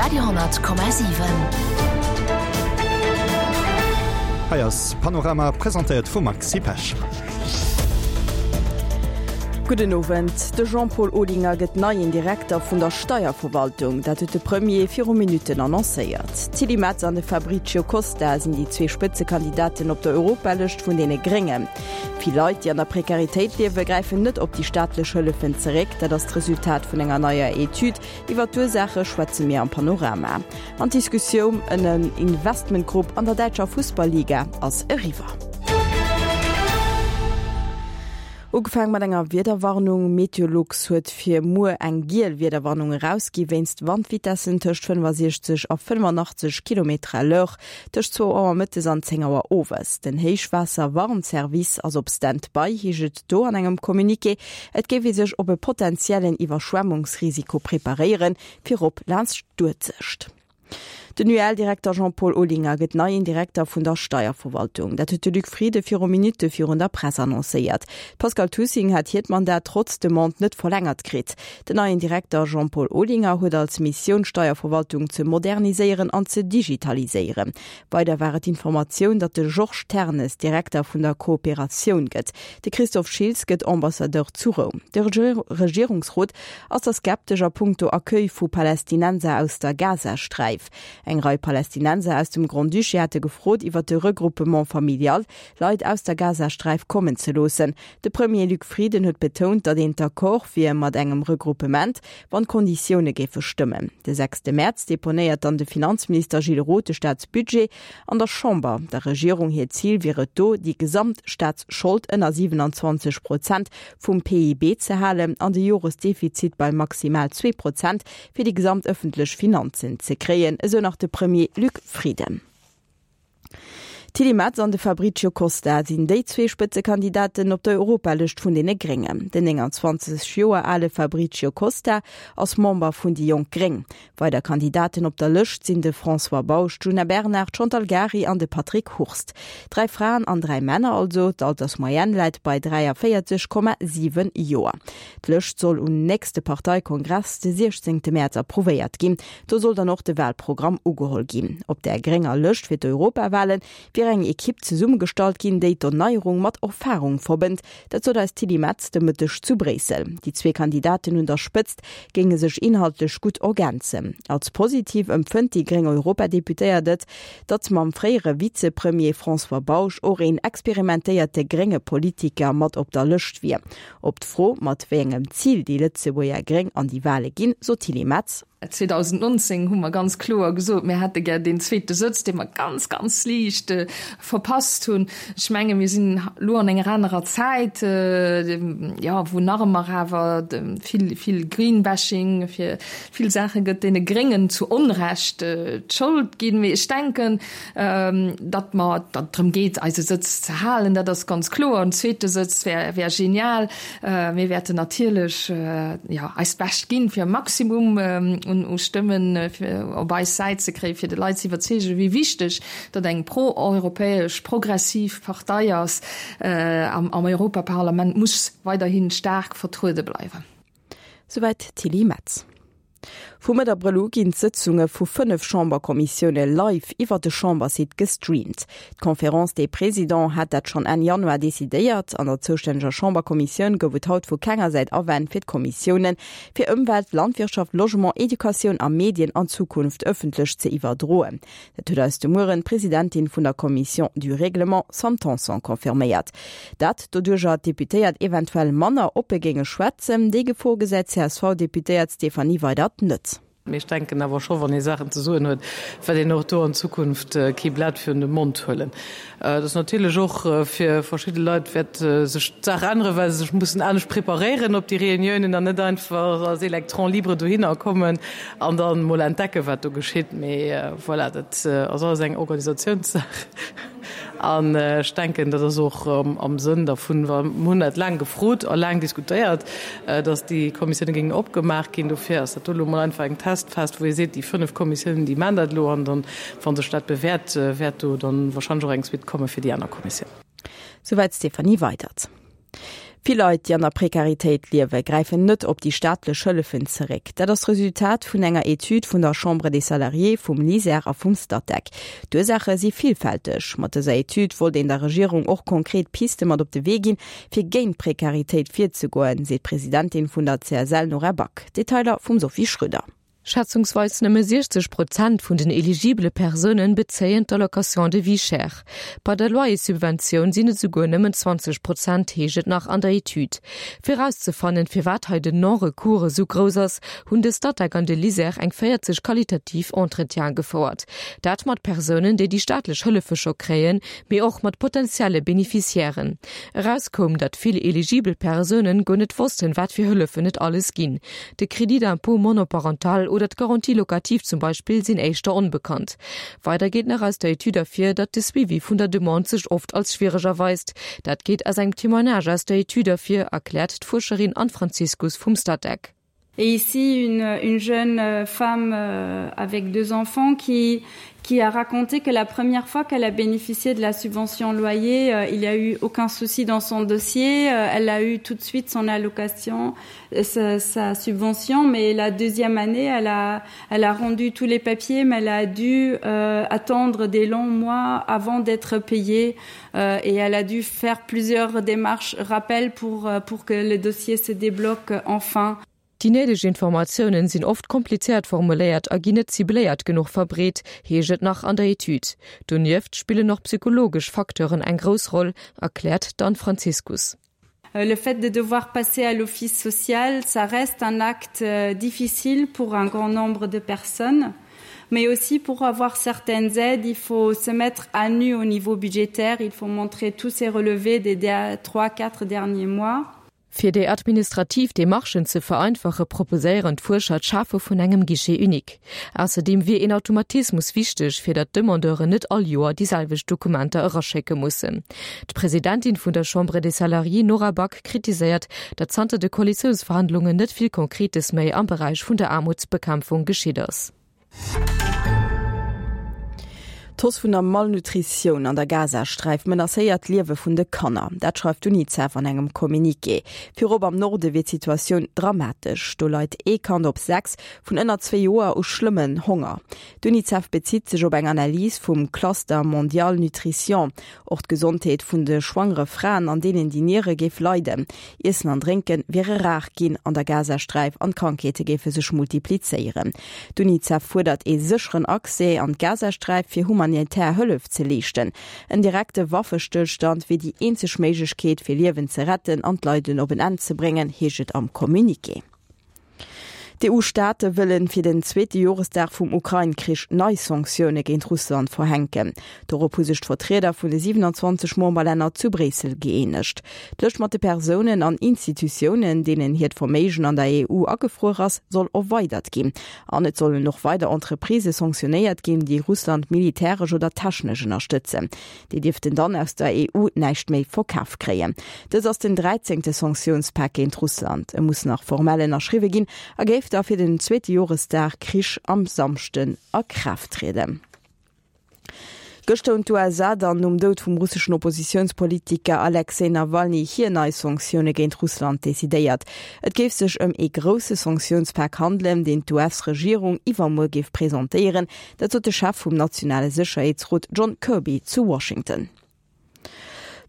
Radio,7. Hei ass Panorama, presentéiert vum Maxi Pesch. Gudden Owend. De Jean-Paul Olinger gëtt neien Direkter vun der Steierverwaltung. Dat huet de Premier viru Minutten annoncéiert. D'Tilly Metz an de Fabricio Costa sinn déi zwee Spëtzekandidaten op der Europalëscht vun deene Gréngen. Vill Leit, déi an der Prekaritéit liewen, gräifen net op déi staatlech Hëllefen zeréck. Dat ass d'Resultat vun enger neier Etüd. Iwwer d'Ursaache schwätze mir am Panorama. An d'Diskussioum ëm en Investmentgrupp an der däitscher Fussball-Liga ass eriwwer. Ugefaang mat enger Wiederwarnung, Meteolux huet fir muer eng giel Wiederwarnung erausgi wéinst Wandvitessen tëscht 65 a 85 Kilometer à l'heure tëscht zwou Auer mëttes an 10 Auer owes. Den Héichwaasser-Warnservice ass op Stand-by, heescht et do an engem Communiqué. Et géif ee sech op e potentiellen Iwwerschwemmungsrisiko preparéieren, virop laanscht d'Uelzecht. Den UEL-Direkter Jean-Paul Olinger gëtt neien Direkter vun der Steierverwaltung. Dat huet de Luc Frieden viru Minutte virun der Press annoncéiert. D'Pascale Toussing hat hiert Mandat trotz Demande net verlängert kritt. Den neien Direkter Jean-Paul Olinger huet als Missioun d'Steierverwaltung ze moderniséieren an ze digitaliséieren. Weider war et d'Informatioun, datt de Georges Ternes Direkter vun der Kooperatioun gëtt. De Christophe Schiltz gëtt Ambassadeur zu Roum. De Regierungsrot ass da skeptesch a punkto Accueil vu Palästinenser aus der Gazasträif. Eng Rei Palästinenser aus dem Grand-Duché hate gefrot, iwwer de Regroupement familial Leit aus der Gazasträif kommen ze loossen. De Premier Luc Frieden huet betount, datt een d'accord wier mat engem Regroupement, wann d'Konditioune géife stëmmen. De sechste Mäerz deponéiert dann de Finanzminister Gilles Roth de Staatsbudget an der Chamber. Der Regierung hiert Zil wier et do, déi gesamt Staatsschold ënner 27 Prozent vum PIB ze halen an de Joresdefizit bei maximal 2 Prozent fir déi gesamt ëffentlech Finanzen ze kréien, esou nach de Premier Luc Frieden. D'Tilly Metz an de Fabricio Costa sinn déi zwee Spëtzekandidaten op der Europalëscht vun deene Gréngen. Den 29 Joer ale Fabricio Costa ass Member vun déi jonk Gréng. Weider Kandidaten op der Lëscht sinn de François Bausch, d'Djuna Bernard, d'Chantal Gary an de Patrick Hurst. Dräi Fraen an dräi Männer also. D'Altersmoyenne läit bei 43,7 Joer. D'Lëscht soll um nächste Parteikongress de 16 Mäerz approuvéiert ginn. Do soll dann och de Wahlprogramm ugeholl ginn. Op där grénger Lëscht fir d'Europawale wier eng Ekipp zesummegestallt ginn, déi d'Erneierung mat Erfarung verbënnt. Dat sot eis d'Tilly Metz de Mëtteg zu Bréissel. Déi zwee Kandidaten un der Spëtzt géinge sech inhaltlech gutt ergänzen. Als positiv empfënnt déi gréng Europadeputéiert et, datt mam fréiere Vizepremier François Bausch och een experimentéierte grénge Politiker mat op der Lëscht wier. Op d'Fro, mat wéi engem Zil déi Lëtzebuerger Gréng an déi Wale ginn, sot d'Tilly Metz. 2019 hu mer ganz kloer gesot, mir hätte gär deen zweete Sëtz, dee mer ganz, ganz liicht verpasst hunn. Ech menge mir sinn elo an enger anerer Zäit, jo, wou nach ëmmer awer vill, vill Greenbashing fir vill Saache gëtt, deene Gréngen zu Onrecht d'Schold ginn. Mee ech denken, Datt mer, datt et drëm geet, eise Sëtz ze halen, dat ass ganz kloer. En zweete Sëtz wär, wär genial. Mir wäerten natierlech, jo, eist Bescht ginn, fir e Maximum un, u Stëmmen fir op eis Säit ze kréien, fir de Leit ze iwwerzeegen, wéi wichteg datt eng pro-europäesch, progressiv Partei ass am, am Europaparlament muss weiderhi staark vertruede bleiwen. Souwäit d'Tilly Metz. Vu Mëtt Abrëll u ginn d'Sëtzunge vu 5 Chamberkommissioune live iwwer de Chambersite gestreamt. D'Conférence des Présidents hat dat schonn Enn Januar decidéiert. An der zoustänneger Chamberkommissioun gouf et haut vu kenger Säit Awänn fir d'Kommissioune fir Ëmwelt, Landwirtschaft, Logement, Educatioun a Medien an Zukunft ëffentlech ze iwwerdroen. Dat huet eis de Mueren d'Presidentin vun der Commission du Règlement, Sam Tanson, confirméiert. Dat doduercher d'Deputéiert eventuell manner oppe géinge schwätzen. Déi Gefor gesäit d'CSV-Deputéiert Stéphanie Weydert net. Mee ech denken awer scho, wann ee Saachen ze soen huet, wäert een och do an Zukunft kee Blat virun de Mond huelen. Et ass natierlech och fir verschidde Leit wäert sech d'Saach änneren, well se sech mussen anescht preparéieren op déi Reuniounen an net einfach als Électron libre dohinner kommen an dann mol entdecken, wat do geschitt. Mee voilà, dat ass alles eng Organisatiounssaach an ech denken, dat ass och am Sënn dervun, well mir hunn dat laang gefrot a laang diskutéiert, datt déi Kommissioune géingen opgemaach ginn. Dofir ass dat do elo mol einfach eng Testphas, wou ee seet, déi 5 Kommissiounen, déi maachen dat elo an dann, wa sech dat bewäert, wäert do dann wahrscheinlech och eng Suite komme fir déi aner Kommissiounen. Souwäit d'Stéphanie Weydert. Vill Leit, déi an der Prekaritéit liewen, gräifen net op déi staatlech Hëllefen zeréck. Dat ass d'Resultat vun enger Etüd vun der Chambre des Salariés, vum LISER a vum Statec. D'Ursaache si villfälteg. Mat dëser Etüd wollt een der Regierung och konkret Piste mat op de Wee ginn, fir géint d'Prekaritéit virzegoen, seet d'Presidentin vun der CSL Nora Back. Detailer vum Sophie Schröder. Schätzungsweis nëmme 60 Prozent vun den eligibele Persounen bezéien d'Allocation de vie chère. Bei der Loyerssubventioun sinn et esouguer nëmmen 20 Prozent, heescht et nach an der Etüd. Fir erauszefannen, firwat hei den Non-recours esou grouss ass, hunn de Statec an de LISER eng 40 qualitativ Entretiene gefouert. Dat mat Persounen, déi déi staatlech Hëllefe scho kréien, mee och mat potentielle Beneficiairen. Eraus koum, datt vill eligibel Persounen guer net wossten, wat fir Hëllefen et alles ginn. De Crédit d'impôt monoparental oder d'Garantie locative zum Beispill sinn éischter onbekannt. Weider geet nach aus der Etüd ervir, datt de Suivi vun der Demande sech oft als schwiereg erweist. Dat geet aus engem Témoignage aus der Etüd ervir, erkläert d'Fuerscherin Anne Franziskus vum Statec. Et ici une, une jeune femme euh, avec deux enfants qui, qui a raconté que la première fois qu'elle a bénéficié de la subvention loyer, euh, il n'y a eu aucun souci dans son dossier. Euh, elle a eu tout de suite son allocation, euh, sa, sa subvention, mais la deuxième année, elle a, elle a rendu tous les papiers, mais elle a dû euh, attendre des longs mois avant d'être payée euh, et elle a dû faire plusieurs démarches rappel pour, euh, pour que le dossier se débloque enfin. Déi néideg Informatiounen sinn oft komplizéiert formuléiert a ginn net cibléiert genuch verbreet, heescht et nach an der Etüd. Donieft spillen och psychologesch Facteuren eng grouss Roll, erkläert d'Anne Franziskus. Euh, le fait de devoir passer à l'office social, ça reste un acte euh, difficile pour un grand nombre de personnes. Mais aussi pour avoir certaines aides, il faut se mettre à nu au niveau budgétaire, il faut montrer tous ses relevés des trois, quatre derniers mois. Fir déi administrativ Demarchen ze vereinfache proposéieren d'Fuerscher d'Schafe vun engem Guichet unique. Ausserdeem wier een Automatismus wichteg, fir datt d'Demandeuren net all Joer déi selwecht Dokumenter eraschécke mussen. D'Presidentin vun der Chambre des Salariés Nora Back kritiséiert, datt zanter de Koalitiounsverhandlungen net vill Konkretes méi am Beräich vun der Aarmutsbekämpfung geschitt ass. D'Hausse vun der Malnutritioun an der Gazasträif menacéiert d'Liewe vun de Kanner. Dat schreift d'Unicef an engem Communiqué. Virop am Norde wier d'Situatioun dramatesch. Do leit ee Kand op 6 vun ënner zwee Joer u schlëmmen Honger. D'Unicef bezitt sech op eng Analys vum Cluster Mondial Nutrition. Och d'Gesondheet vun de schwangere Fraen an deenen déi niere géif leiden. Iessen an Drénke wiere rar ginn an der Gazasträif an d'Krankheete géife sech multiplizéieren. D'Unicef fuerdert ee sécheren Accès an d'Gazasträif fir humanitär Hëllef ze leeschten. En direkte Waffestëllstand wier déi eenzeg Méiglechkeet fir Liewen ze retten an d'Leiden op en Enn ze bréngen, heescht et am Communiqué. D'EU-Staate wëllen fir den zweete Joresdag vum Ukrain-Krich nei Sanktioune géint Russland verhänken. Dorop hu sech d'Vertrieder vun de 27 Memberlänner zu Bréissel gëeenegt. D'Lëscht mat de Persounen an Institutiounen, deenen hiert Verméigen an der EU agefruer ass, soll erweidert ginn. An et sollen och weider Entreprisë sanktionéiert ginn, déi Russland militäresch oder technesch ënnerstëtzen. Déi dierften dann aus der EU näischt méi verkaf kréien. Dëst ass den dräizéngte Sanktiounspak géint Russland. E muss nach formell ënnerschriwwe ginn a géif da fir den zweete Joresdag Krich am Samschden a Kraaft trieden. Gëschter hunn d'USA dann nom Doud vum russeschen Oppositiounspolitiker Alexej Nawalny hir nei Sanktioune géint Russland decidéiert. Et géif sech ëm ee grousse Sanktiounspak handelen, deen d'US-Regierung iwwermuer géif presentéieren. Dat sot de Chef vum nationale Sécherheetsrot John Kirby zu Washington.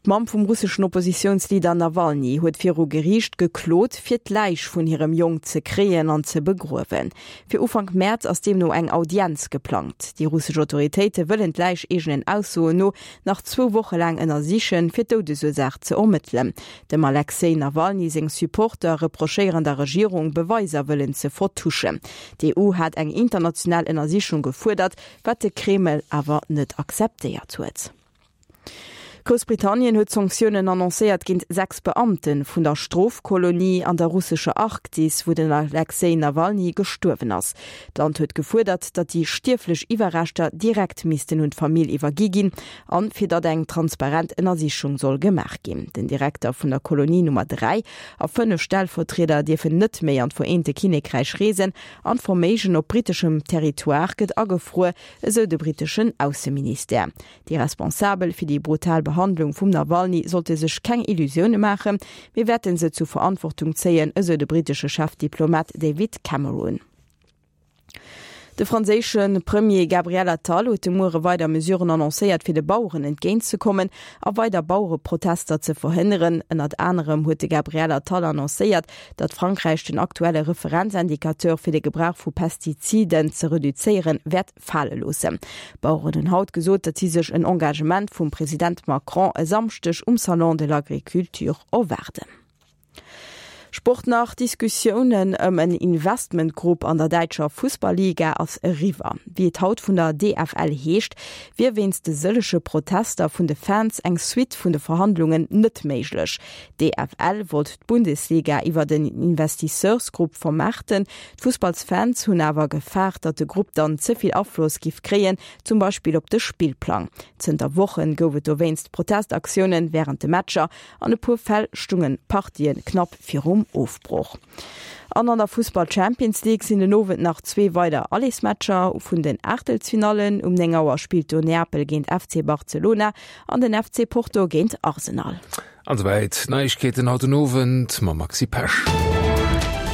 D'Mamm vum russeschen Oppositiounsleader Nawalny huet viru Geriicht geklot, fir d'Läich vun hirem Jong ze kréien an ze begruewen. Fir Ufank Mäerz ass deemno eng Audienz geplangt. Déi russesch Autoritéite wëllen d'Läich eegenen Aussoen no nach zwou Woche laang ënnersichen, fir d'Doudesursaach ze ermëttelen. Dem Alexej Nawalny seng Supporter reprochéieren der Regierung, Beweiser wëllen ze vertuschen. D'EU hat eng international Ënnersichung gefuerdert, wat de Kreml awer net akzeptéiert huet. Groussbritannien huet Sanktiounen annoncéiert géint 6 Beamte vun der Strofkolonie an der russescher Arktis, wou den Alexej Nawalny gestuerwen ass. D'Land huet gefuerdert, datt déi stierflech Iwwerreschter direkt missten un d'Famill iwwergi ginn an fir datt eng transparent Ënnersichung soll gemaach ginn. Den Direkter vun der Kolonie Nummer 3 a 5 Stellvertrieder dierfen net méi an d'Vereente Kinnekräich reesen an d'Verméigen op britteschem Territoire gëtt agefruer, esou de britteschen Ausseministère. Déi Responsabel fir déi brutal Behandlung. Behandlung vum Nawalny sollte sech keng Illusioune maachen, Mir wäerten se zu Verantwortung zéien, esou de brittesche Chefdiplomat David Cameron. De franséische Premier Gabriel Attal huet de Muere weider Mesuren annoncéiert, fir de Baueren entgéintzekommen a weider Bauereprotester ze verhënneren. Ënnert anerem huet de Gabriel Attal annoncéiert, datt Frankräich den aktuelle Referenzindicateur fir de Gebrauch vu Pestiziden ze reduzéieren wäert fale loossen. D'Baueren hunn haut gesot, datt si sech en Engagement vum President Macron e Samschdeg um Salon de l'Agriculture erwaarden. Sport nach, D'Diskussiounen ëm en Investmentgrupp an der däitscher Fussballiga ass eriwwer. Wéi et haut vun der DFL heescht, wier wéinst de sëllege Protester vun de Fans eng Suite vun de Verhandlungen net méiglech. D'DFL wollt d'Bundesliga iwwert en Investisseursgrupp vermaarten. D'Fussballsfans hunn awer gefaart, datt de Grupp dann ze vill Afloss giff kréien, zum Beispill op de Spillplang. Zënter Wochen gouf et dowéinst Protestaktioune wärend de Matcher. An e puer Fäll stungen d'Partien knapp virum Ofbroch. An an der Fussball Champions League sinn den Owend nach zwee weider Allersmatcher vun den Aachtelsfinallen. Um 9 Auer spillt do Neapel géint FC Barcelona an den FC Porto géint Arsenal. An esouwäit d'Neiegkeeten haut den Owend mam Maxi Pesch.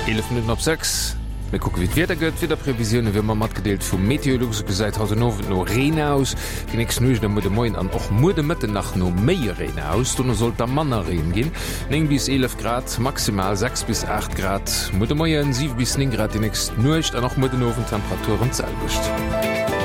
11 Minutten op 6. Mir kucke wéi d'Wieder gëtt. D'Wiederprevisioune wéi ëmmer matgedeelt vu Meteolux. Et gesäit haut den Owend no Reen aus. Déi nächst Nuecht a muer de Moien an och muer de Mëtten nach no méi Reen aus. Dono soll et da manner Reen ginn, 9 bis 11 Grad maximal, 6 bis 8 Grad muer de Moien, 7 bis 9 Grad déi nächst Nuecht an och muer den Owend Temperaturen d'selwecht.